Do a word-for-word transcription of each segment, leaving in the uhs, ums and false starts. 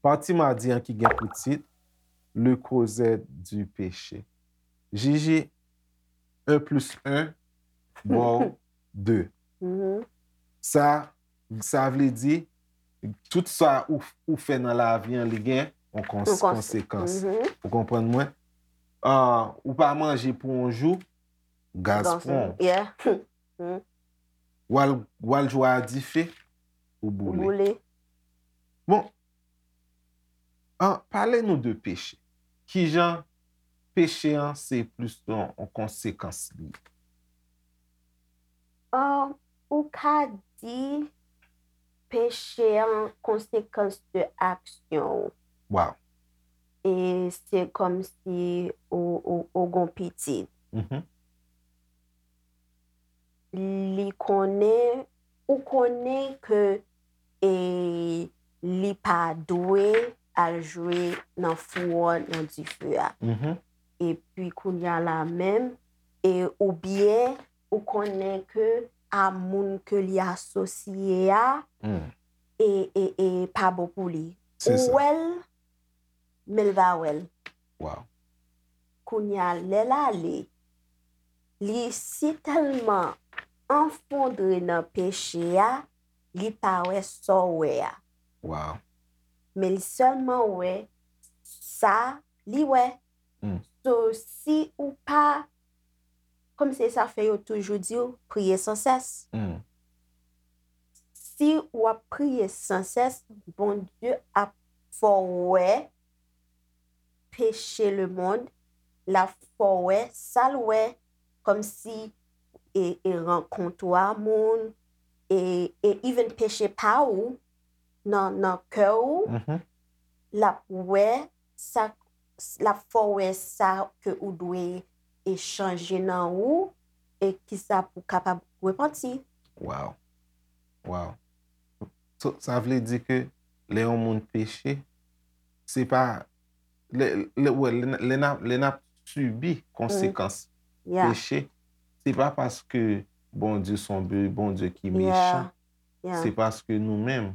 Pati madi an ki gen pou tit Le creuset du péché. Jiji, un plus un, ba w de. Sa, sa vle di, tout sa ou, ou fè nan lavi an, li gen yon kons-, konsekans. Ou konprann mwen? Ah, ou pa manje pou yon jou, gaz pran w. Yeah. W al, w al jwe a dife, ou boule. Boule. Bon, ah, pale nou de peche. Kijan peche an se plis yon, yon konsekans li? Ah, ou ka di peche an konsekans de aksyon ou. Wow. E se kòmsi ou, ou, ou gon pitit. Mhm. Li konnen, ou konnen ke, e, li pa dwe al jwe nan fou an, nan dife a. Mhm. Epi kounye a la menm, e oubyen ou konnen ke a moun ke li asosye a, e, e, e pa bon pou li. Ou wè l, men l pa wè l. Wow. Kounye a, lè l ale, li si tèlman anfondre nan peche a, li pa wè sa w wè a. Wow. Men li sèlman wè sa li wè. Mm. So, si ou pa, kòm se sa fè yo toujou di w, priye san sès. Mm. Si w ap priye san sès, Bondye ap fè w wè peche lemonn, l ap fè w wè sa l wè, kòmsi e, e rankont ou a moun, e, e even peche pa ou nan, nan kè ou, mhm, l ap wè sa, l ap fè w wè sa ke ou dwe e chanje nan ou, e kisa pou w kapab repanti. Wow. Wow. So, sa vle di ke lè yon moun peche, se pa, lè, lè, wè, lè, n- lè n ap, lè n ap sibi konsekans, mm, yeah, peche, se pa paske Bondye se yon Bondye ki, yeah, mechan. Yeah. Se paske nou menm,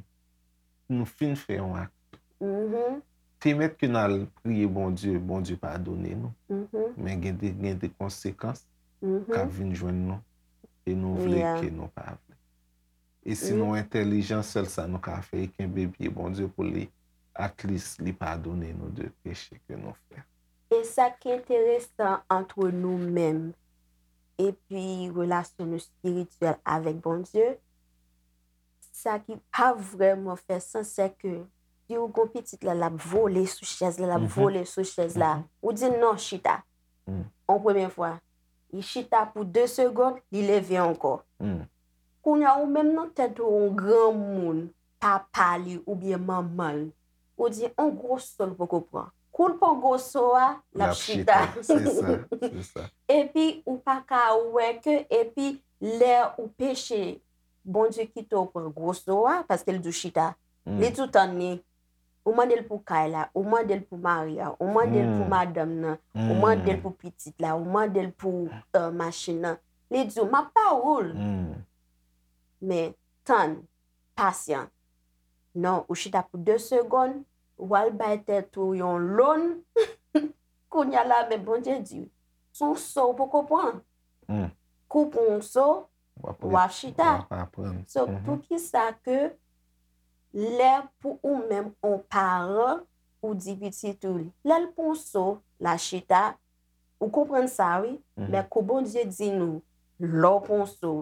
nou fin fè yon ak. Mhm. Te mèt ke n al priye Bondye, Bondye padone nou. Mhm. Men gen de, gen de konsekans, mhm, k ap vin jwenn nou, e nou vle, yeah, ke nou pa vle. E si, mm, nou entèlijan, sèl sa nou ka fè, e kenbe pye Bondye pou li, at least, li padone nou de peche ke nou fè. E sa ki enteresan antre nou menm epi relasyon nou espirityèl avèk Bondye, sa ki pa vrèman fè sans, se ke si w gon pitit la, l ap vole sou chèz la, l ap, mhm, vole sou chèz la, mhm, ou di l non, chita. Mm. Yon premye fwa, li chita pou de segonn, li leve ankò. Mm. Kounye a, ou menm nan tèt ou, yon granmoun, papa li oubyen manman l, ou di, yon gwo so l poko pran. Kou l pran gwo so a, l ap chita. L ap chita. Se sa, se sa. Epi, ou pa ka wè ke, epi, lè ou peche, Bondye kite w pran gwo so a, paske l di w chita. Mm. Li di w tann li. Ou mande l pou kay la, ou mande l pou mari a, ou mande l pou, mm, madanm nan, ou, mm, mande l pou pitit la, ou mande l pou, euh, machin nan. Li di w, m ap ba ou l. Mm. Men, tann, pasyan. Non, ou chita pou de segonn, w al bay tèt ou yon lòn. Kounye a la, men Bondye di, se yon so w poko pran. Mm. Kou w pran yon so, w ap, w ap chita. W ap aprann. So, mhm, poukisa ke lè pou ou menm, yon paran, ou di pitit ou, lè l pran yon so, l a chita, ou konprann sa, wi, mhm, men kou Bondye di nou, lè w pran yon so,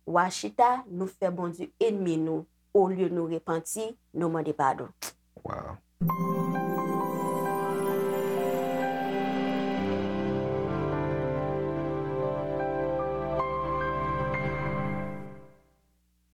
w a chita, nou fè Bondye ènmi nou, olye nou repanti, nou mande padon. Wow.